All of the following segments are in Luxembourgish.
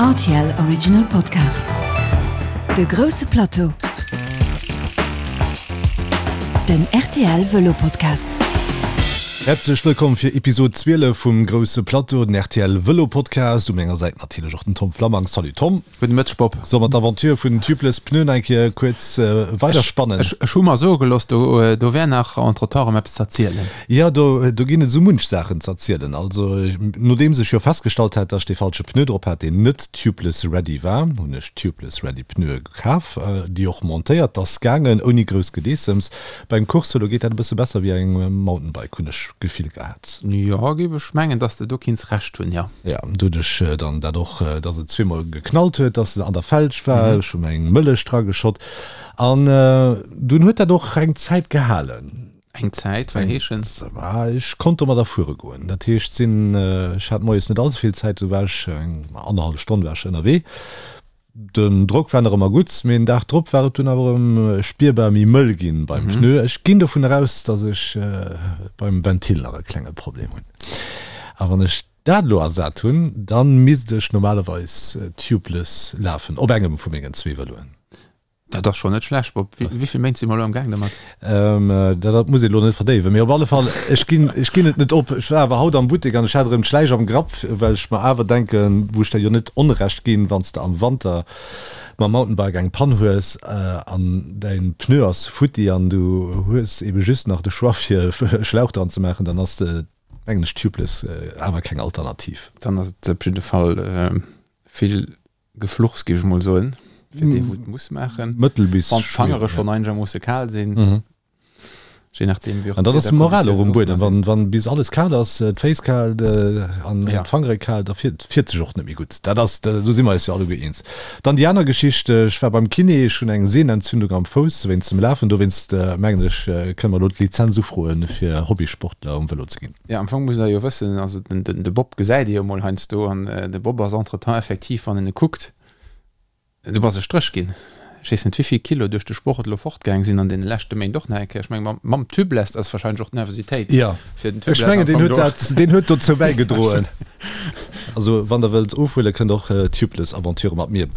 Rtl Original Podcast. De grousse Plateau. Den rtl Vëlo Podcast. Häerzlech wëllkomm fir Episod 12 vum Grousse Plateau, den rtl Vëlo Podcast. U menger Säit natierlech och den Tom Flammang. Salut Tom. Gudde Mëtteg Bob. Solle mer d'Aventure vun den Tubeless Pneuen eng Kéier kuerz weiderspannen? Ech hu mer soe gelooss, do do wär nach entretemps erëm eppes ze erzielen. Jo, do do ginn et esou munch Saachen ze erzielen. Also, nodeems ech jo festgestallt hat, dass ech dee falsche Pneu drop hat, deen net tubeless ready war, hunn ech tubeless ready Pneue kaf, déi och montéiert. 't ass gaangen ouni grouss Gedeessems. Beim Course-Vëlo geet dat e bësse besser wéi engem Mountainbike, hunn ech d'Gefill gehat. Jo, géif ech mengen, dass de do kinns Recht hunn, jo. Jo, do hunn ech dann dat och, dass et zweemol geknallt huet, dass se an der Felg war. Ech hu mer eng Mëllech drageschott an dunn huet dat och eng Zäit gehalen. Eng Zäit, wat heeschen? Ech konnt domadder fuere goen. Dat heescht, sinn, ech hat moies net all ze vill Zäit, do war ech eng annerhallef Stonn war ech ënnerwee. Den Drock war nach ëmmer gutt, mee den Dag drop war et dunn awer erëm spierbar méi mëll ginn beim Pneu. Ech ginn dovun eraus, dass ech beim Ventil nach e klenge Problem hunn. A wann ech dat elo ersat hunn, dann misst ech normalerweis tubeless lafen op engem vu mengen zwee Vëloen. Dat ass schonn net schlecht, Bob. Wéi vill Méint si mer elo am Gaang domat? Dat muss een elo net verdéiwen, mee op alle Fall, ech ginn, ech ginn et net op. Ech war awer haut am Buttek an ech hat erëm d'Schläich am Grapp, well ech mer awer denken, wou ech der jo net Onrecht ginn, wann s de am Wanter mam Mountainbike eng Pann hues an däin Pneu ass futti an du hues ebe just nach de Choix fir e Schlauch dran ze maachen, dann ass de, mengen ech, Tubeless awer keng Alternativ. Dann ass et op jidde Fall vill Gefluchs, géif ech mol soen, fir dee wou et muss maachen. Mëttel bis Wann d'Fangere schonn einegermoosse kal sinn, je nachdeem wéi och An dann ass de Moral och um Buedem, wann wann bis alles kal ass, d'Féiss kal an d'Fangere kal, da fiert fiert sech och net méi gutt. Dat ass, do si mer eis jo alleguer eens. Dann déi aner Geschicht, ech war beim Kiné, ech hunn eng Sehnenentzündung am Fouss wéinst dem Lafen, dowéinst mengen ech kënne mer elo d'Lizenz ufroen fir Hobbysportler um Vëlo ze ginn. Jo, am Fong muss der jo wëssen, also den, den, de Bob gesäit ee jo mol heiansdo an de Bob ass entretemps effektiv, wann en e kuckt, du bass e Stréch ginn. Ech weess net, wéivill Kilo duerch de Sport elo fortgaang sinn an deene leschte Méint och nach eng Kéier. Ech menge mam, mam Tubeless ass wahrscheinlech och d'Nervositéit Jo, fir den ech Tubeless mengen, am deen Fong huet do. dat, deen huet dozou bäigedroen. Also wann der wëllt ofhuelen, kënnt och Tubeless-Aventure mat mir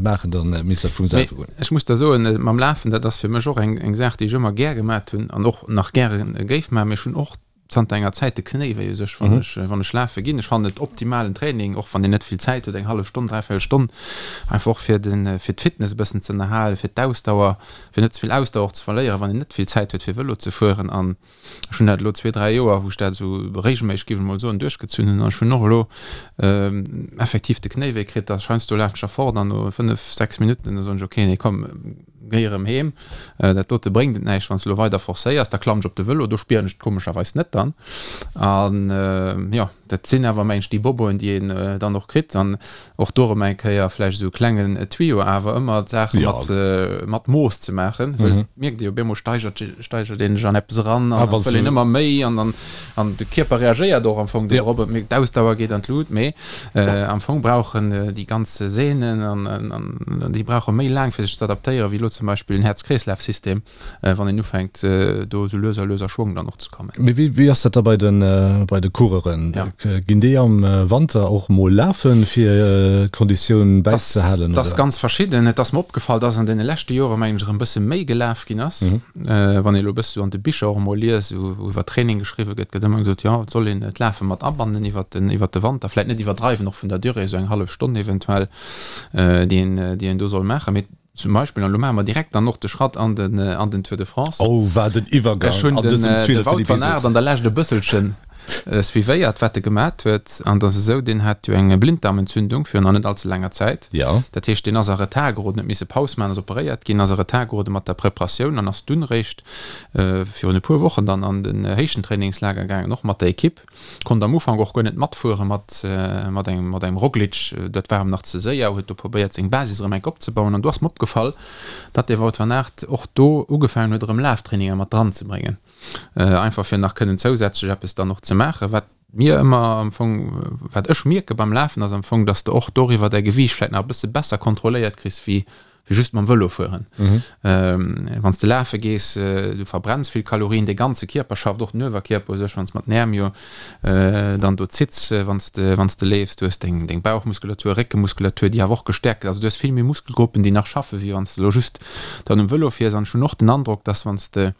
maachen, dann misst dat vum Mee selwe goen. ech muss der soen, mam Lafen, dat ass fir mech och eng, eng Saach, déi ech ëmmer gär gemat hunn an och nach gäre géif maachen. Mee ech hunn och zanter enger Zäit de Knéi wéi u sech, wann ech, wann ech lafe ginn. Ech fannen et optimalen Training, och wann een net vill Zäit huet, eng hallef Stonn, dräivéierel Stonn, einfach och fir den, fir d'Fitness e bëssen ze ënnerhalen, fir d'Ausdauer, fir net ze vill Ausdauer och ze verléieren, wann een net vill Zäit huet fir Vëlo ze fueren. An ech hunn dat elo zwee, dräi Joer, wou ech dat esou regelméisseg, géif ech mol soen, duerchgezunn hunn. An ech hunn och elo effektiv de Knéi wéi kritt, da heiansdo lafen ech da fort an no fënnef, sechs Minutten, da soen ech, okay, nee komm, Géi erëm heem, dat dote bréngt et näischt, wann s de elo weider forcéiers. Da klammen ech op de Vëlo, do spieren ech et komescherweis net dann. An jo, dat sinn awer mengen ech déi Boboen, déi een dann och kritt. An och do erëm eng Kéier vläicht esou e klengen Tuyau, awer ëmmer d'Saache mat mat Mooss ze maachen, wëll et mierkt ee jo, op eemol steigert steigert een sech an eppes eran an dann wëll een ëmmer méi an dann an de Kierper reagéiert och am Fong dorop, et mierkt, d'Ausdauer geet an d'Lut, mee Am Fong brauchen déi ganz Sehnen an déi brauche méi laang fir sech ze adaptéieren, wéi elo zum Beispill en Häerz-Kreeslaf-System, wann een ufänkt do esou lues a lues a Schwong dann och ze kommen. Mee wéi ass dat da bei de Coureuren? Ginn déi am Wanter och mol lafen, fir d'Konditioun bäizehalen? Dat ass ganz verschidden. Et ass mer opgefall, dass an deene leschte Jore mengen ech erëm e bësse méi gelaf ginn ass. Wann ee elo e bësse sou an de Bicher och emol liest, wou iwwer Training geschriwwe gëtt, gëtt ëmmer gesot, jo, et soll een d'Lafe mat abannen iwwer den, iwwer de Wanter, vläicht net iwwerdreiwen och vun der Durée, esou eng hallef Stonn eventuell, déi een, déi een do soll maachen. Mee zum Beispill, an elo maache mer direkt dann och de Schratt an den, an den Tour de France. Oh, wat en Iwwergang Ech hunn an den, dësem de zwieleften Wout van Aert Episod. an der Lescht e bësselchen suivéiert, wat e gemat huet. An et ass esou, deen hat jo eng Blinddarmentzündung virun nach net allze laanger Zäit. Jo. Dat heescht, deen ass a Retard geroden, huet misse Paus maachen, ass operéiert ginn, ass a Retard gerode mat der Preparatioun an ass dunn eréischt virun e puer Wochen dann an den Héichtentrainingslager gaangen, och mat der Ekipp. Konnt am Ufank och guer net matfuere mat mat engem mat engem Roglic, dat war em nach ze séier, huet do probéiert seng Basis erëm enk opzebauen. An do ass mer opgefall, datt de Wout van Aert och do ugefaangen huet erëm Laftraininger mat dran ze bréngen, einfach fir nach kënnen zousätzlech eppes dann och ze maachen. Wat mir ëmmer am Fong, wat ech mierke beim Lafen ass am Fong, datt s de och doriwwer däi Gewiicht vläicht nach e bësse besser kontrolléiert kriss wéi. Wéi just mam Vëlo fueren. Wann s de lafe gees, du verbrenns vill Kalorien, de ganze Kierper schafft, och den Uewerkierper u sech, wann s mat den Äerm jo dann do zitts, wann s de, wann s de leefs. Du hues deng, deng Bauchmuskulatur, Réckemuskulatur, déi awer och gestäerkt gëtt. Also du hues vill méi Muskelgruppen, déi nach schaffen, wéi wann s de elo just dann um Vëlo fiers. An ech hunn och den Androck, dass wann s de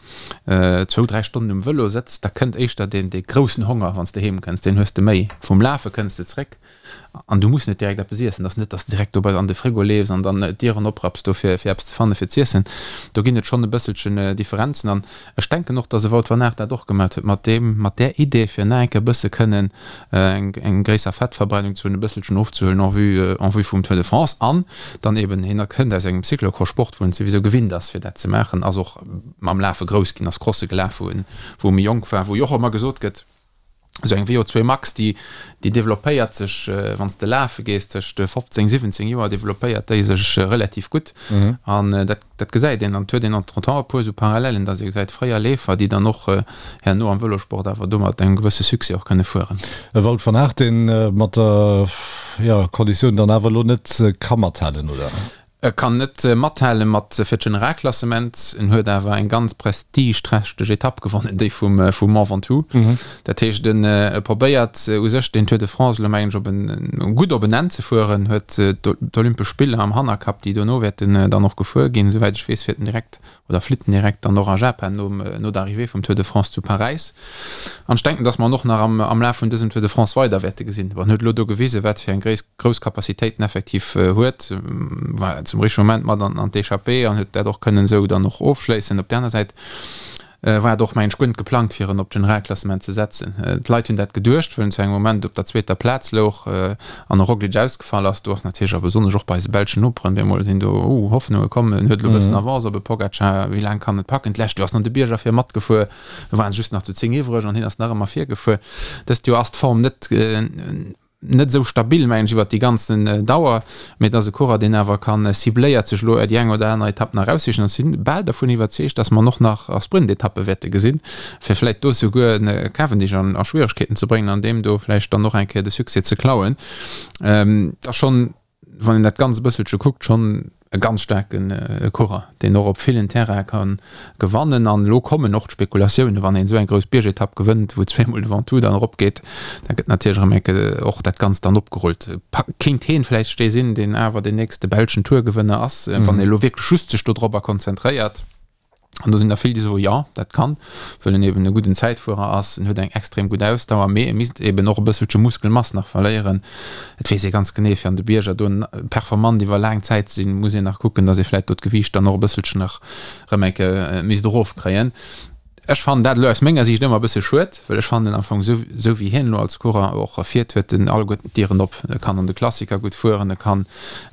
zwou, dräi Stonnen um Vëlo sëtz, da kënnt éischter deen, dee groussen Honger, wann s de heem kënns, deen hues de méi. Vum Lafe kënns de zréck An du muss net direkt eppes iessen. Et ass net, dass de direkt do bei an de Frigo leefs an dann d'Dieren oprapps do fir fir eppes ze fanne fir z'iessen. Do ginn et schonn e bësselchen Differenzen. An ech denken och, dass e Wout van Aert dat och gemat huet mat deem, mat där Idee fir nach eng Kéier e bësse kënnen eng eng gréisser Fettverbrennung ze hunn, e bësselchen ofzehuelen en vue en vue vum Tour de France. An dann eben, hien kënnt aus engem Cyclocross-Sport, wou en souwisou gewinnt ass fir dat ze maachen, ass och mam Lafe grouss ginn, ass Crosse gelaf wou en wou e méi jonk war, wou jo och ëmmer gesot gëtt, Esou eng VO2 Max, déi, déi developpéiert sech, wann s de lafe gees, tëscht 15, 17 Joer developpéiert déi sech relativ gutt. An dat, dat gesäit een. An et huet een entretemps e puer esou Parallellen, datt ee gesäit, fréier Leefer, déi dann och herno am Vëlosport awer do mat engem gewësse Succès och kënne fueren. E Wout van Aert, deen mat der, jo, Konditioun dann awer elo net ka mathalen, oder? E kann net mathale mat fir d'Generalklassement, en huet awer eng ganz prestigeträchteg Etapp gewonnen, déi vum vum Mont Ventoux. Dat heescht en e probéiert u sech den Tour de France elo mengen ech op en gutt op en Enn ze fueren, huet d'Olympesch Spiller am Hannerkapp, déi dono wäerten dann och gefuer ginn. Esouwäit ech weess fiert en direkt oder flitt en direkt dann och a Japan nom, no der Arrivée vum Tour de France zu Paräis. An ech denken, dass mer en och nach am, am Laf vun dësem Tour de France weider wäerte gesinn. Bon, en huet elo do gewisen, wat fir eng gréis, grouss Capacitéit en effektiv huet, war zum richtege Moment mat an, an d'Echappée an huet dat och kënnen esou dann och ofschléissen. Op där aner Säit war et och, mengen ech, guer net geplangt, fir en op d'Generalklassement ze setzen. D'Leit hunn dat geduecht, wëll en zu engem Moment op der zweeter Plaz louch an e Roglic ausgefall ass. Do ass natierlech, a besonnesch och bei eise belschen Noperen, bemol sinn do Hoffnunge komm, en huet elo e bëssen Avance op e Pogacar, wéi laang kann en et packen? D'lescht Joer ass en an de Bierger vir matgefuer, do waren se just nach zu 10 iwwreg an hien ass nach ëmmer virgefuer. Dëst Joer ass d'Form net net esou stabil, mengen ech, iwwert déi ganzen Dauer, mee et ass e Coureur, deen awer ka cibléiert sech elo déi eng oder aner Etapp nach eraussichen. An ech si bal dervun iwwerzeegt, datt mer en och nach a Sprintetappe wäerte gesinn, fir vläicht do souguer en Cavendish an a Schwieregkeeten ze bréngen an deem do vläicht dann och eng Kéier de Succès ze klauen. Et ass schonn, wann een dat Ganzt e bësselche kuckt, schonn e ganz staarke Coureur, deen och op villen Terraine ka gewannen. An elo kommen och d'Spekulatiounen, wann een esou eng grouss Biergetapp gewënnt, wou zweemol de Ventoux dann eropgeet, da gëtt natierlech erëm eng Kéier och dat Ganzt dann opgerullt. Kéint heen vläicht dee sinn, deen awer deen nächste belschen Tourgewënner ass, wann ee elo wierklech just sech dodropper konzentréiert? An do sinn der vill, déi soen, jo, dat kann, wëll en eben e gudden Zäitfuerer ass, en huet eng extrem gutt Ausdauer, mee e misst eben och e bësselche Muskelmass nach verléieren. Et weess ee ganz genee, fir an de Bierger do performant iwwer laang Zäit ze sinn, muss een nach kucken, datt ee vläicht do d'Gewiicht dann och e bësselchen nach erëm eng Kéier misst erofkréien. Ech fannen dat elo aus menger Siicht ëmmer e bësse schued, well ech fannen am Fong esou, esou wéi hien elo als Coureur och fiert, huet en alleguerten d'Dieren op. E kann an de Klassiker gutt fueren, e kann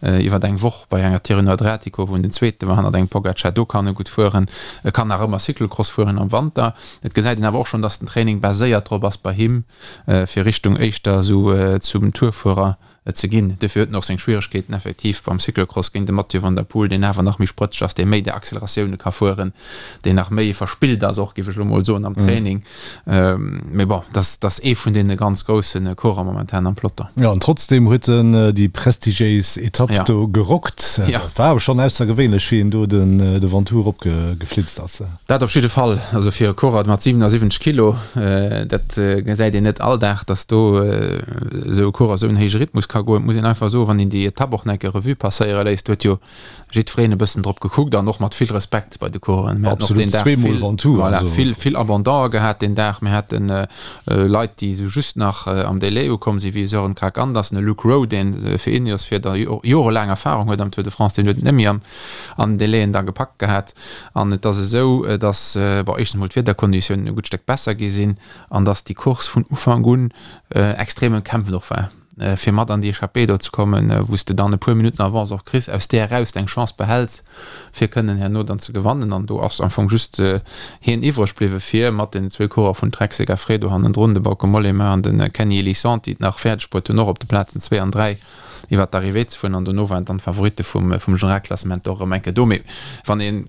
iwwer eng Woch bei enger Tirreno-Adriatico, wou en den Zweete war hannert engem Pogacar, do kann e gutt fueren. E kann nach ëmmer Cyclocross fueren am Wanter. Et gesäit een awer och schonn, datt den Training baséiert drop ass bei him, fir Richtung éischter esou zum Tourfuerer ze ginn. Duerfir huet en och seng Schwieregkeeten effektiv beim Cyclocross géint de Mathieu van der Poel, deen awer nach méi sprëtzeg ass, dee méi déi Acceleratioune ka fueren, deen nach méi verspillt ass och, géif ech elo mol soen, am Training. Mee bon, dat ass ee vun deene ganz grousse Coureur momentan am Peloton. Jo, an trotzdeem huet en déi prestigiéis Etapp do gerockt. Dat war awer schonn aussergewéinlech, wéi en do de Ventoux eropgeflitzt ass. Dat op jidde Fall. Also fir e Coureur mat 77 Kilo, dat gesäit een net all Dag, datt do esou e Coureur esou en héije Rhythmus ka goen. Et muss een einfach soen, wann een déi Etapp och nach eng Kéier Revue passéiere léisst, do huet jo jiddwereen e bëssen drop gekuckt an och mat vill Respekt bei de Coureuren. Mir haten och deen Dag vill, voilà, vill, vill Abandone gehat deen Dag. Mir haten Leit, déi esou just nach am Délai ukomm sinn, wéi e Sören Kragh Andersen, e Luke Rowe, deen fir Ineos fiert a jorelaang Erfahrung huet am Tour de France, deen huet et net méi an den Délaien da gepackt gehat. An et ass esou, datt, bon, éischtens emol d'Wiederkonditiounen e gutt Stéck besser gi sinn an datt déi Course vun Ufank un extrem ëmkämpft och war, fir mat an déi Echappée do ze kommen, wou s de dann e puer Minutten Avance och kriss, aus där eraus deng Chance behäls, fir kënnen herno dann ze gewannen. An do ass am Fong just hien iwwreg bliwwe fir mat den zwou Coureur vun Trek Segafredo hannendrun, de Bauke Mollema an de Kenny Elissonde, déi et nach fäerdeg bruet hunn, och op de Plazen zwee an dräi iwwer d'Arrivée ze fueren an dono waren dann d'Favoritte vum vum Generalklassement och erëm eng Kéier do. Mee wann een,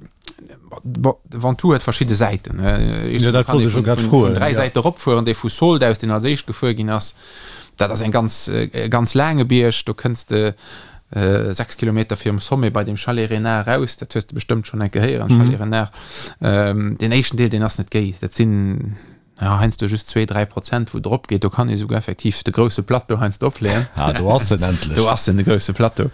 bon, de Ventoux huet verschidde Säiten, Jo, dat wollt ech elo grad froen. Vun dräi Säite eropfueren, dee vu Sault aus, deen als éischt gefuer ginn ass, dat ass eng ganz, e ganz laange Bierg, do kënns de. 6 Kilometer virum Sommet bei dem Chalet Renard eraus, dat hues de bestëmmt schonn eng Kéier héieren, Chalet Renard. Deen éischten Deel, deen ass net géi, dat sinn jo heiansdo just zwee, 3 Prozent, wou et eropgeet. Do kann ee souguer effektiv de grousse Plateau heiansdo opleeën. Ah, do ass en endlech. Do ass en, de grousse Plateau.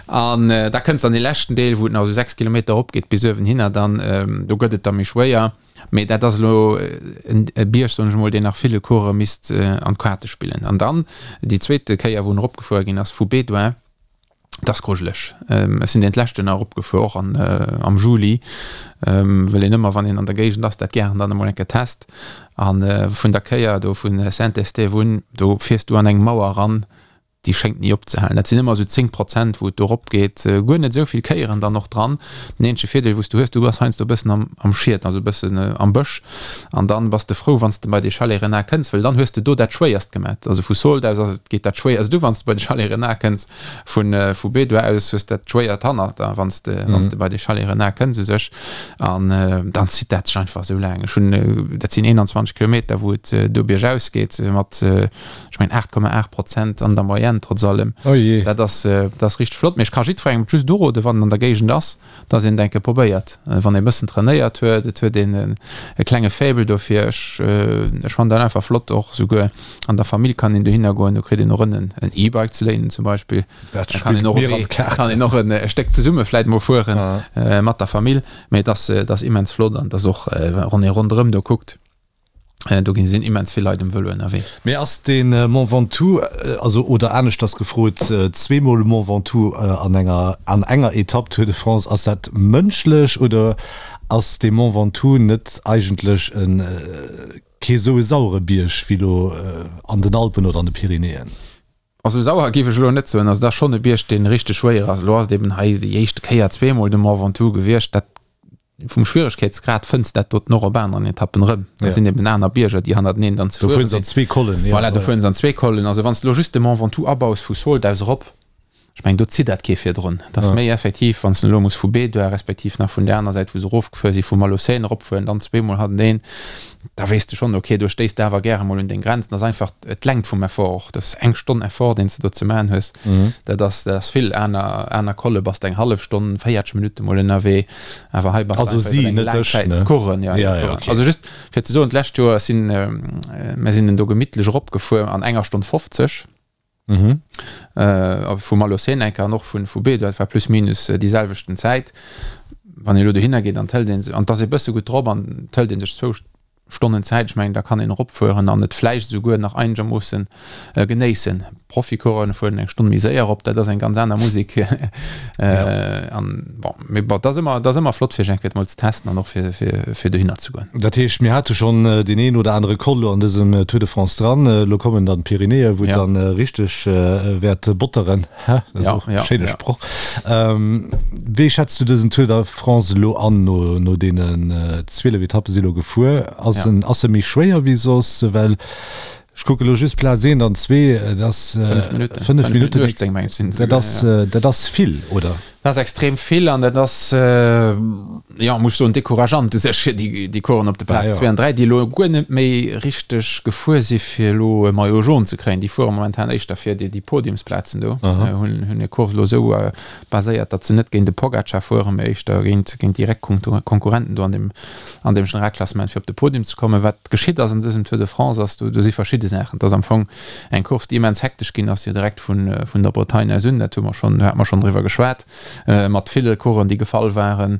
An da kënns de an dee leschten Deel, wou et nach esou 6 Kilometer eropgeet bis uewenhinner dann, do gëtt et da méi schwéier. Mee dat ass elo e Bierg, soen ech emol, deen nach ville Coureuren misst an d'Kaarte spillen. An dann déi zweete Kéier, wou en eropgefuer ginn ass vu Bédoin, dat ass grujeleg. Ech sinn deen d'lescht Joer nach eropgefuer, och an am Juli, well een ëmmer, wann een an der Géigend ass, dat gären dann emol eng Kéier test. A vun der Kéier do vu Saint-Estève un, do fiers du an eng Mauer eran, déi schéngt ni opzehalen. Dat sinn ëmmer esou 10 Prozent, wou et do eropgeet. Guer net esou vill Kéieren dann och dran. Den eenzege Virdeel, wou s du hues, du bass heiansdo e bëssen am, am Schiet, also e bëssen am Bësch. An dann bass de frou, wann s de bei dee Chalet Renard kënns, well dann hues de do dat Schwéierst gemat. Also vu Sault aus ass et, geet dat Schwéierst u, wann s de bei de Chalet Renard kënns. Vu, vu Bédoin aus hues dat Schwéiert hannert der, wann s de, wann s de bei dee Chalet Renard kënns u sech. An dann zitt dat sech einfach esou laang. Ech hunn, dat sinn 21 Kilometer, wou et do biergaus geet mat, Ech mengen 8,8 Prozent an der Moyenne trotz allem. Oh jee. Dat ass, dat ass richteg flott. Mee ech ka jiddwerengem et just uroden, wann en an der Géigend ass, dass een et eng Kéier probéiert. Wann ee bëssen trainéiert huet, et huet een e klenge Faible dofir. Ech, ech fannen dat einfach flott. Och souguer an der Famill kann een dohinner goen. Do kritt een och en E-Bike ze léinen zum Beispill. Dat Da kann spillt een och mir an e, d'Kaarten. kann een och en e Stéck zesumme vläit mol fueren Ah. mat der Famill. Mee et ass, et ass immens flott an et ass och, wann ee ronderëm do kuckt, Do ginn sinn immens vill Leit um Vëlo ënnerwee. Mee ass de Mont Ventoux, also oder aneschters gefrot, zweemol Mont Ventoux an enger an enger Etapp Tour de France, ass dat mënschlech oder ass de Mont Ventoux net eigentlech e kee sou e sauere Bierg wéi lo an den Alpen oder an de Pyrenäen? Also sauer géif ech elo net soen. Also dat ass schonn e Bierg, dee richteg schwéier ass. Elo ass et eben hei déi éischte Kéier zweemol de Mont Ventoux gewiescht. Dat Vum Schwieregkeetsgrad fënns dat doten och op aneren Etappen erëm. Dat sinn eben aner Bierger, déi hannerteneen dann ze fuere sinn. Do fueren se an zwee Kollen, jo. Voilà, do fueren se an zwee Kollen. Also wann s de elo just de Mont Ventoux abaus vu Sault aus erop, ech mengen, do zitt dat kee virdrun. Dat ass méi effektiv, wann s de elo muss vu Bédoin respektiv nach vun där aner Säit, wou se erofgefuer sinn, vu Malaucène eropfueren, dann zweemol hannerteneen. Da weess de schonn, ok, do stéiss de awer gäre mol un deng Grenzen. Dat ass einfach d'Längt vum Effort och. Dat ass eng Stonn Effort, deen s de do ze maachen hues. Dat ass, dat ass vill. Aner, aner Colle bass de eng hallef Stonn, 40 Minutte mol ënnerwee. Awer hei bass de Also einfach si, iwwer eng net laang ech, Zäit. ne? D'Coursen, ja, Ja, ja, ja, ok. Also just fir ze soen, d'lescht Joer sinn, mir sinn en do gemittlech eropgefuer an enger Stonn 50. Mhm. Äh, vu Malaucène enker an och vun vu Bédoin, et war plus minus déi selwechten Zäit. Wann ee lo dohinner geet an d'hëlt een se, an 't ass ee bësse gutt drop an d'hëlt ee sech zwou Stonnen Zäit, ech mengen da kann een eropfueren an et vläicht esouguer nach einegermoossen genéissen. Proficoureuren fueren eng Stonn méi séier erop, dat ass eng ganz aner Musek. An bon, mee bon, 't ass ëmmer, 't ass ëmmer flott fir sech eng Kéier emol ze testen an och fir, fir, fir dohinner ze goen. Dat heescht, mir hate schonn deen een oder anere Col lo an dësem Tour de France dran. Elo kommen dann d'Pyrenäen, wou et dann richteg wäert botteren. Dat ass och e schéine Sproch. Wéi schätz du dësen Tour de France elo an, no deenen 12 Etappe si lo gefuer? Ass en ass e méi schwéier wéi soss? Well ech kucke lo just Plaz eent an zwee, dat ass 5 Minutten, dat ass dat ass vill, oder? Dat ass extrem vill an dat ass, jo, muss ech soen, decourageant u sech fir déi Coureuren op de Plaz 2 an 3, déi elo guer net méi richteg gefuer si fir elo e Maillot jaune ze kréien. Déi fuere momentan éischter fir déi Podiumsplazen do, hunn hir Course elo esou baséiert, datt se net géint de Pogacar fueren, mee éischter géint direkt Konkurrenten do an deem an deem Generalklassement fir op de Podium ze kommen. Wat geschitt ass an dësem Tour de France ass, do si verschidde Saachen. Et ass am Fong eng Course, déi immens hektesch ginn ass, jo direkt vun vun der Bretagne aus un, dat hu mer schonn, do hate mer schonn driwwer geschwat, mat ville Coureuren, déi gefall waren.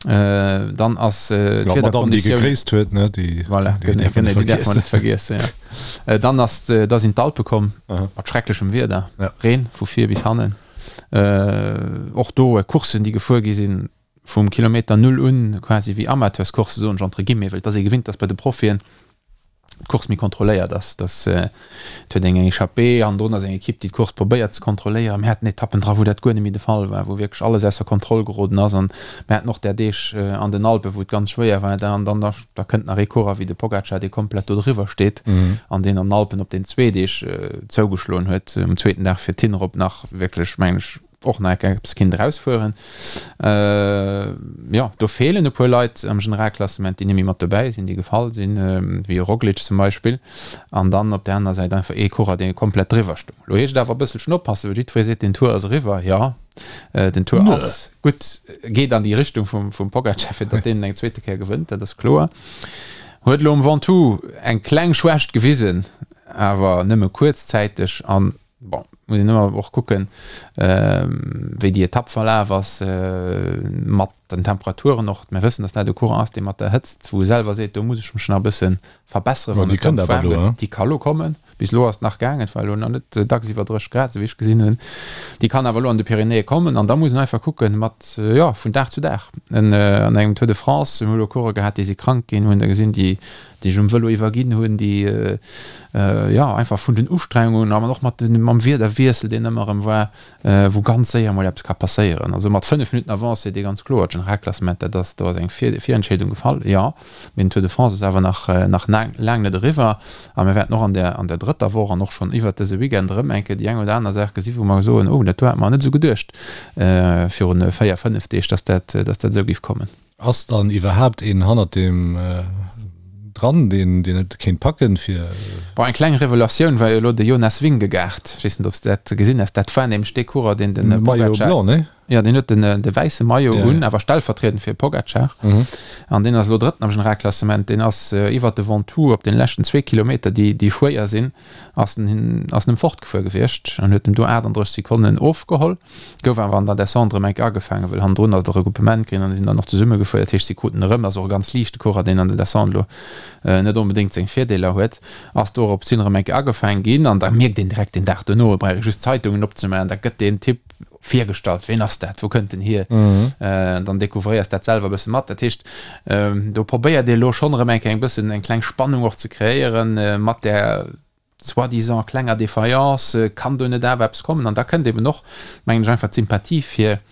Dann ass d'Wiederkonditioun. D'Madame, déi gegréisst huet, ne, déi voilà, däerf mer net vergiessen, jo. Dann ass, da sinn d'Alpe komm mat schrecklechem Wieder, Reen vu vir bis hannen. Och do Courssen, déi gefuer gi sinn, vum Kilometer Null un, quasi wéi Amateurscoursse, soen ech entre guillemets, well et ass ee gewinnt, dass bei de Profien d'Course méi kontrolléiert ass, dass et huet eng eng Echappée an drun ass eng Ekipp, déi d'Course probéiert ze kontrolléieren. Mir haten Etappen dra, wou dat guer net méi de Fall war, wou wierklech alles ausser Kontroll geroden ass an mir haten och där Deeg an den Alpen, wou et ganz schwéier war. Da an dann da da kënnt nach ee Coureur wéi de Pogacar, dee komplett do driwwer steet an deen an den Alpen op den zwee Deeg zougeschloen huet, um zweeten Dag fir d'Hinnerop nach wierklech, mengen ech,. och nach eppes kinnt erausfueren. Jo, do feelen e puer Leit am Generalklassement, déi net méi mat dobäi sinn, déi gefall sinn, wéi e Roglic zum Beispill. An dann op där anerer Säit einfach ee Coureur, dee komplett driwwer stoung. Lo heescht et awer e bësselchen oppassen, well jiddweree seet, den Tour ass eriwwer. Jo, den Tour ass gutt, geet an déi Richtung vum Pogacar, fir datt deen eng zweete Kéier gewënnt, dat ass kloer. Huet elo um Ventoux eng kleng Schwächt gewisen, awer nëmme kuerzzäiteg an Bon, muss een ëmmer och kucken, wéi déi Etapp verlaf ass, mat den Temperaturen och. Mir wëssen, datt dat e Coureur ass, dee mat der Hëtzt, wou e selwer seet, do muss ech mech nach e bësse verbesseren, wann et ganz waarm gëtt. Déi ka lo kommen. Bis elo ass et nach gaangen, et war elo nach net dacks iwwer 30 Grad, esou wéi ech gesinn hunn. Déi kann awer elo an de Pyrenäe kommen an da muss een einfach kucken, mat, jo, vun Dag zu Dag. An engem Tour de France, mir hu elo Coureuren gehat, déi si krank ginn, hunn der gesinn, déi déi sech um Vëlo iwwerginn hunn, déi jo einfach vun den Ustrengungen an och mat den, mam Wiederwiessel, deen ëmmer erëm war, wou ganz séier emol eppes ka passéieren. Also mat 5 Minutten Avance seet ee ganz kloer, d'Generalklassement, dat ass, do ass eng Virentscheedung gefall, jo, mee den Tour de France ass awer nach, nach laang net eriwwer a mir wäerten och an der, an der drëtter Woch an och schonn iwwert dëse Weekend erëm eng Kéier déi eng oder aner Saach gesi wou mer soen, oh dat do hate mer net esou geduecht virun 4, 5 Deeg, dass dat, dass dat esou géif kommen. Ass dann iwwerhaapt een hannert deem dran, deen deen et kéint packen fir. Bon, eng kleng Revelatioun war jo elo de Jonas Vingegaard. Ech weess net, ob s de dat gesinn has. Dat war nämlech dee Coureur, deen de Maillot Pogacar. blanc, nee? Jo, deen huet den de wäisse Maillot un, awer stellvertriedend fir Pogacar. An deen ass elo Drëtten am Generalklassement. Deen ass iwwert de Ventoux op den leschten zwee Kilometer, déi déi schwéier sinn, ass en ass en em fortgefuer gewiescht an huet em do 38 Sekonnen ofgeholl. Gouf awer an der Descente erëm enk agefaangen, well hannendrun ass de Regroupement ginn an si sinn dann och zesumme gefuer. Dat heescht, si kruten erëm, ass och e ganz liichte Coureur, deen an der Descente elo net onbedéngt seng Virdeeler huet, ass dorops hin erëm enk agefaangen ginn. An da mierkt een direkt deen Dag dono, et brauch ee just d'Zeitungen opzemaachen, da gëtt deen Typ virgestallt, ween ass dat, wou kënnt en hier? Dann découvréiers dat selwer e bësse mat. Dat heescht, do probéiert ee elo schonn erëm eng Kéier eng bëssen eng kleng Spannung och ze kreéieren mat där, soi-disant klenger Défaillance, kann do net awer eppes kommen? An da kënnt eben och, mengen ech, einfach d'Sympathie fir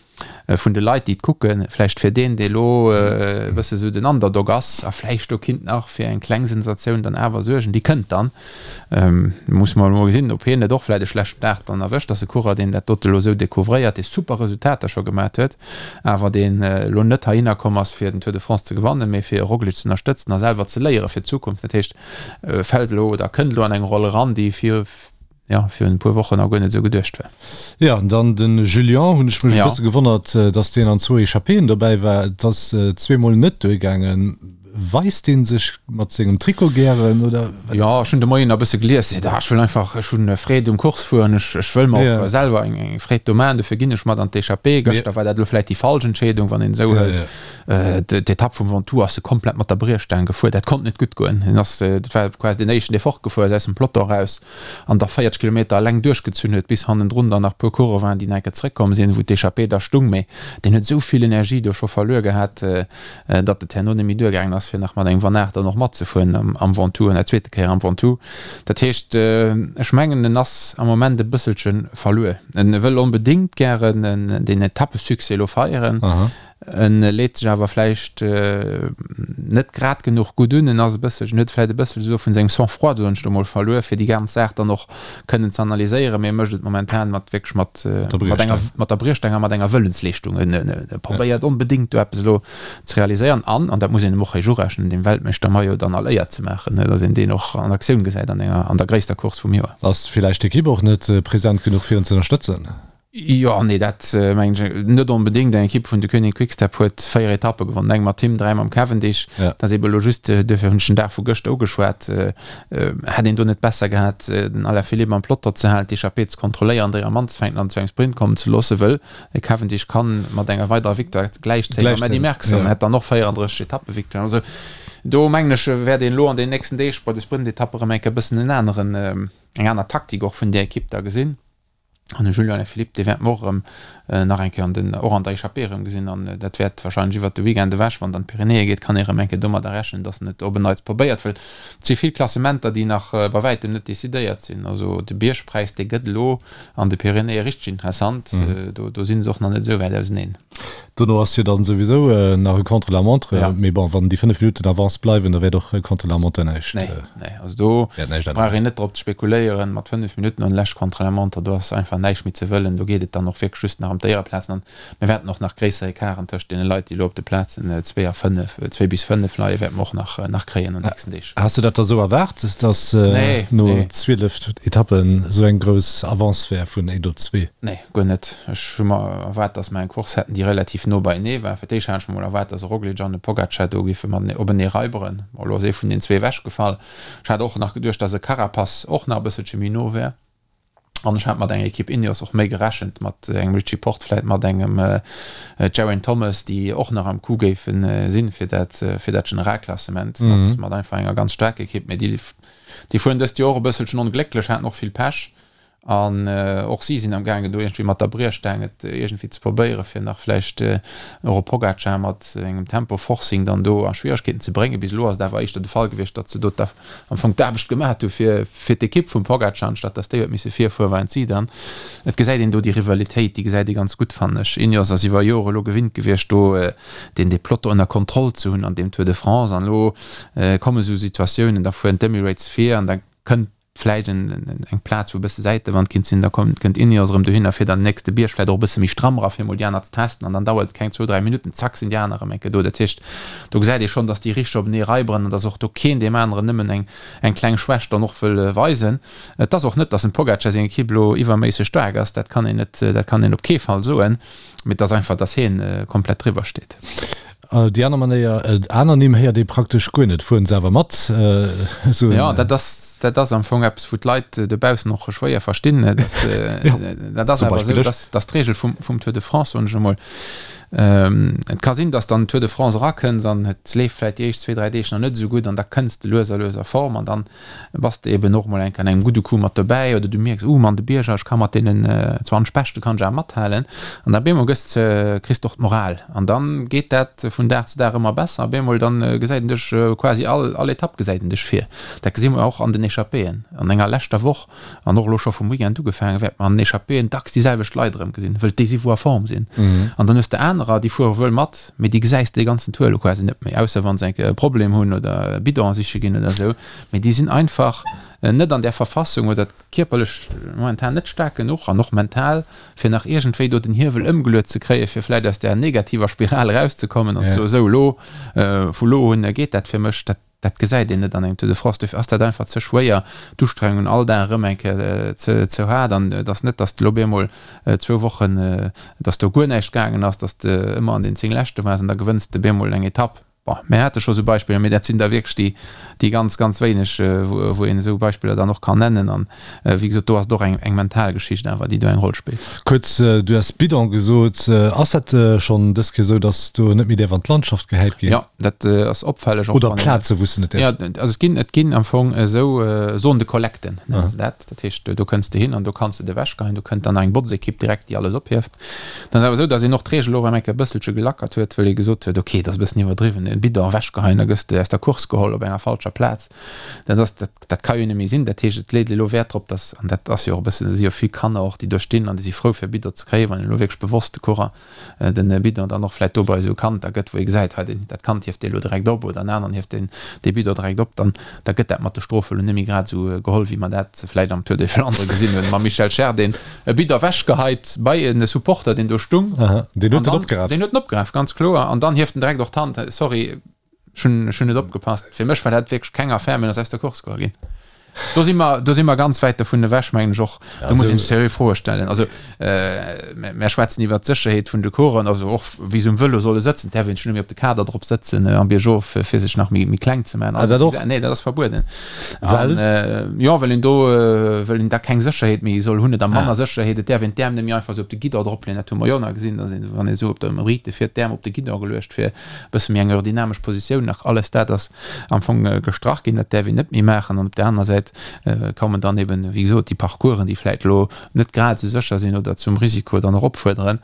vun de Leit, déi et kucken, vläicht fir deen, dee elo e bësse sou den Underdog ass a vläicht do kinnt nach fir eng kleng Sensatioun dann awer suergen, déi kënnt dann. Musse mer emol gesinn, ob hien net och vläicht e schlechten Dag dann erwëscht. Ass e Coureur, deen dat dote elo esou découvréiert, dee super Resultater scho gemat huet, awer deen elo net heihinner komm ass, fir den Tour de France ze gewannen, mee fir e Roglic ze ënnerstëtzen a selwer ze léiere fir d'Zukunft. Dat heescht, fält elo oder kënnt elo an eng Roll eran, déi vir, jo, virun e puer Wochen nach guer net esou geduecht war. Jo, an dann de Julien, hunn ech mech e bësse gewonnert, dass deen an zwou Echappéen dobäi war. Et ass zweemol net duergaangen. Weist dee sech mat sengem Trikot gären, oder? Jo, ech hunn de Moien nach e bësse gelies. Seet, ah, ech wëll einfach, ech hunn Freed um Course fueren, ech, ech wëll mer och selwer eng, eng Freed do maachen, dofir ginn ech mat an d'Echappée. Gëschter war dat elo vläicht déi falsch Entscheedung, wann een esou hëlt. D'Etapp vum Ventoux ass e komplett mat der Briechstaang gefuer. Dat konnt net gutt goen. Hien ass, dat war quasi deen éischten, dee fortgefuer ass aus dem Peloton eraus an da 40 Kilometer eleng duerchgezunn huet, bis hannendrun dann nach e puer Coureuren waren, déi nach eng Kéier zeréckkomm sinn, wou d'Echappée da stung. Mee deen huet esou vill Energie do scho verluer gehat, datt et herno net méi duergaangen ass, fir nach mat engem Van Aert dann och matzefueren am Ventoux an der zweete Kéier am Ventoux. Dat heescht, ech mengen, en ass am Moment e bësselche verluer. En wëll onbedéngt gären deen Etappesuccès elo feieren. En leet sech awer vläicht net grad genuch gutt un. En ass e bësselchen, huet vläicht e bësselche esou vun sengem Sang-froid, soen ech lo mol, verluer, fir déi ganz Saach dann och kënnen ze analyséieren. Mee e mécht et momentan mat wierklech mat, mat enger, mat der Briechstaang a mat enger Wëllensleeschtung. En probéiert onbedéngt do eppes elo ze realiséieren an, an dat muss een em och héich urechnen, dem Weltmeeschter-Maillot dann all Éier ze maachen, datt een deen och an Aktioun gesäit an enger, an der gréisster Course vum Joer. Ass villäicht d'Ekipp och net present genuch fir en ze ënnerstëtzen? Jo, nee, dat mengen ech net onbedéngt. Eng Ekipp vun Deceuninck Quick-Step huet 4 Etappe gewonnen, eng mat him, 3 mam Cavendish. Dat ass ebe elo just, duerfir hunn ech den Dag vu gëschter ugeschwat, hätt een do net besser gehat, den Alaphilippe am Peloton ze halen, d'Echappée ze kontrolléieren, déi am anzefänken an zu engem Sprint kommen ze loossen, wëll de Cavendish kann mat enger weiderer Victoire gläichzéien mam Eddy Merckx an hätt dann och 34 Etappevictoiren. Also do mengen ech, wäert een elo an den nächsten Deeg bei de Sprintetappe erëm eng Kéier e bëssen en aneren, eng aner Taktik och vun där Ekipp da gesinn. An de Julian Alaphilippe, dee wäerte mer och erëm nach eng Kéier an den, och an der Echappée erëm gesinn. An dat wäert wahrscheinlech iwwert de Weekend ewech, wann et an d'Pyrenäe geet, kann ee erëm eng Kéier domadder rechnen, datt en et op en Neits probéiert. Well et si vill Klassementer, déi nach bei wäitem net decidéiert sinn. Also de Biergpräis, dee gëtt elo an de Pyrenäe richteg interessant. Do, do si se och nach net esou wäit auseneen. Dono ass jo dann souwisou nach e Contre-la-montre. Mee bon, wann déi 5 Minutten Avance bleiwen, da wäert och Contre-la-montre näischt. Nee, nee, also do brauch een net drop ze spekuléieren. Mat 5 Minutten an lescht Contre-la-montre, do ass einfach näischt méi ze wëllen. Do geet et dann och wierklech just nach ëm d'Éiereplazen. An mir wäerten och nach gréisser Ecarten tëscht deene Leit, déi elo op de Plazen 2 a 5, 2 bis 5 leien, wäerte mer och nach, nach kréien an den nächsten Deeg. Has du dat da sou erwaart, dass no 12 Etappen sou eng grouss Avance wär vun 1 op 2? Nee, guer net. Ech hu mer erwaart, dass mer eng Course hätten, déi relativ no beienee war. Fir d'éischt hat ech mer mol erwaart, dass e Roglic an e Pogacar do géife matenee openee raiberen. Bon, elo ass ee vun den zwee ewechgefall. Ech hat och nach geduecht, dass e Carapaz och nach e bësselche méi no wär. An ech hat mat enger Ekipp Ineos och méi gerechent, mat engem Richie Porte, vläit mat engem Geraint Thomas, déi och nach am Coup géife sinn, fir dat, fir dat Generalklassement, mat, mat einfach enger ganz staarker Ekipp. Mee déi, déi fueren dëst Joer och e bësselchen onglécklech, haten och vill Pech. An och si sinn am gaangen do iergendwéi mat der Briechstaang et iergendwéi ze probéieren, fir nach vläicht och e Pogacar mat engem Tempo-Forcing dann do a Schwieregkeeten ze bréngen. Bis elo ass et awer éischter de Fall gewiescht, datt se do am Fong d'Aarbecht gemat hu fir fir d'Ekipp vum Pogacar, anstatt datt déi huet misse virfueren, waren et si dann. Et gesäit een do déi Rivalitéit, déi gesäit ee ganz gutt, fannen ech. Ineos ass iwwer Jore elo gewinnt gewiescht, do deen dee Peloton ënner Kontroll ze hunn an deem Tour de France. An elo komme sou Situatiounen, da fueren d'Emirates vir an da kënnt vläicht eng Plaz wou e bësse Säitewand kinnt sinn, da kommt kënnt Ineos erëm dohinner fir dann den nächste Bierg vläicht och e bësse méi stramm era fir emol déi aner ze testen an dann dauert et keng zwou, dräi Minutten, zack sinn déi aner erëm eng Kéier do. Dat heescht, do gesäit ee schonn, datt déi richteg openee raiberen an datt och do keen deem aneren nëmmen eng eng kleng Schwächt dann och wëll weisen. Et ass och net, datt dem Pogacar seng Ekipp elo iwwerméisseg staark ass, dat kann een net, dat kann een op kee Fall soen, mee et ass einfach, datt hien komplett driwwer steet. Déi aner Manéier, aner Nimm héiert ee praktesch guer net, fueren se awer mat esou en. Jo, dat ass, dat ass am Fong eppes, wou d'Leit dobaussen och schwéier verstinn. Dat ass awer esou, dass, dass d'Regel vum, vum Tour de France, soen ech emol, et ka sinn, dass dann Tour de France erakënns an et leeft vläicht déi éischt zwee, dräi Deeg nach net esou gutt an da kënns de lues a lues a Form an dann bass de eben och mol eng Kéier an engem gudde Coup mat dobäi oder du mierks, uh, an de Bierger, ech ka mat deenen 20 Beschte kann ech awer mathalen. An da bemol gëss de, kriss de och d'Moral an dann geet dat vun Dag zu Dag ëmmer besser a bemol dann gesäit een dech quasi all, all Etapp gesäit een dech vir. Dat gesi mer och an den Echappéen an enger leschter Woch an och elo scho vum Weekend ugefaangen, wäerte mer an den Echappéen dacks déi selwecht Leit erëm gesinn, wëll déi si wou a Form sinn. An dann hues de anerer, déi fuere wuel mat, Mee déi gesäis de dee ganzen Tour elo quasi net méi, ausser wa se eng Kéier e Problem hunn oder e Bidon siche ginn oder esou. Mee déi sinn einfach net an där Verfassung oder kierperlech momentan net staark genuch an och mental, fir nach iergendwéi do den Hiewel ëmgeluet ze kréien, fir vläicht aus där negativer Spiral erauszekommen an ze soen, esou elo, vu lo un geet dat fir mech. Dat Dat gesäit een net an engem Tour de France. Dofir ass dat einfach ze schwéier, d'Ustrengung all Dag erëm eng Kéier ze haart. An et ass net, datt elo op eemol zwou Wochen, datt do guer näischt gaangen ass, datt de ëmmer an den 10 Leschte waars an da gewënns de op eemol eng Etapp. Bon, mir hate scho sou Beispiller, mee dat sinn da wierklech déi, déi ganz, ganz wéineg, wou een esou Beispiller dann och kann nennen. An wéi gesot, do ass et och eng, eng mental Geschicht awer, déi do eng Roll spillt. Kuerz, du has Bidon gesot. Ass dat schonn dës Kéier esou, datt do net méi däerf an d'Landschaft gehäit ginn? Jo, dat ass opfälleg. Och Oder Plaze wou s de net däerfs. Jo, also et ginn, et ginn am Fong esou Zone de collecte nennen se dat. Dat heescht, do kënns de hin an do kanns de et ewechgeheien. Do kënnt dann eng Botzekipp direkt, déi alles ophieft. Et ass awer esou, datt een och d'Reegel och eng Kéier e bësselche gelackert huet, well ee gesot huet, ok, et ass e bëssen iwwerdriwwen, e Bidon ewechgeheien, da gëss de aus der Course geholl op enger falscher Plaz. Dat ass, dat, dat ka jo net méi sinn. Dat heescht, et leet elo Wäert drop, datt, an dat ass jo och e bëssen, et si jo vill Kanner och, déi do stinn an déi si frou fir e Bidon ze kréien, wann een elo wierklech bewosst de Coureur den Bidon dann och vläit do bei esou Kand da gëtt, wou ee gesäit, hei deen, dat Kand hieft dee elo direkt op oder en aneren hieft deen dee Bidon direkt op, dann da gëtt dat mat de Strofe elo net méi grad esou geholl, wéi mer dat vläit am Tour des Flandres gesinn hunn, mam Michel Scherr, deen e Bidon ewechgeheit bei e Supporter, deen do stung. Aha, deen huet en opgeraf. Deen huet en opgeraf, ganz kloer. An dann hieft en direkt och d'Hand, Sorry, Ech hunn, ech hunn net opgepasst. Fir mech war dat wierklech keng Affär, mee en ass aus der Course geholl ginn. Do si mer, do si mer ganz wäit dovun ewech, mengen ech och. Do muss een sech seriö Froe stellen. Also, mär schwätzen iwwert d'Sécherheet vun de Coureuren, also och wéi se um Vëlo solle sëtzen. Et däerf een sech net méi op de Kader drop sëtzen am Biergof, fir sech nach méi, méi kleng ze maachen. Ah, dat och? Nee, dat ass verbueden. Well? An, jo, well een do, well een da keng Sécherheet méi soll hunn oder manner Sécherheet. Et däerf een d'Äerm net méi einfach esou op de Guidon dropleeën. Dat hu mer jo nach gesinn, dass een, wann ee esou op der Rite fiert, d'Äerm op de Guidon geluecht fir bësse méi eng aerodynamesch Positioun nach, alles dat ass am Fong gestrach ginn, dat däerf een net méi maachen. An op där anerer Säit kommen dann eben, wéi gesot, déi Parcoursen, déi vläicht elo net grad esou sécher sinn oder zum Risiko dann och opfuerderen.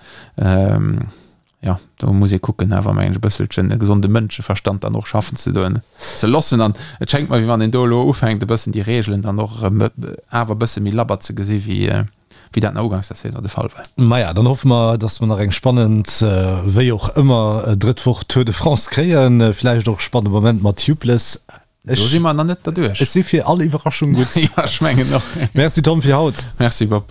Jo, do muss ee kucken awer, mengen ech, e bësselchen e gesonde Mënscheverstand dann och schaffen ze doen, ze loossen. An et schéngt mer, wéi wann een do elo ufänkt e bëssen déi Regeln dann och erëm awer e bësse méi labber ze gesi wéi. wéi dat nach uganks der Saison de Fall war. Maja, dann hoffe mer, dass mer nach eng spannend, wéi och ëmmer, drëtt Woch Tour de France kréien. Villäicht och e spannende Moment mat Tubeless. Do si mer nach net derduerch. Ech si fir all Iwwerraschung gutt. Jo, ech mengen och. Merci Tom fir haut. Merci Bob.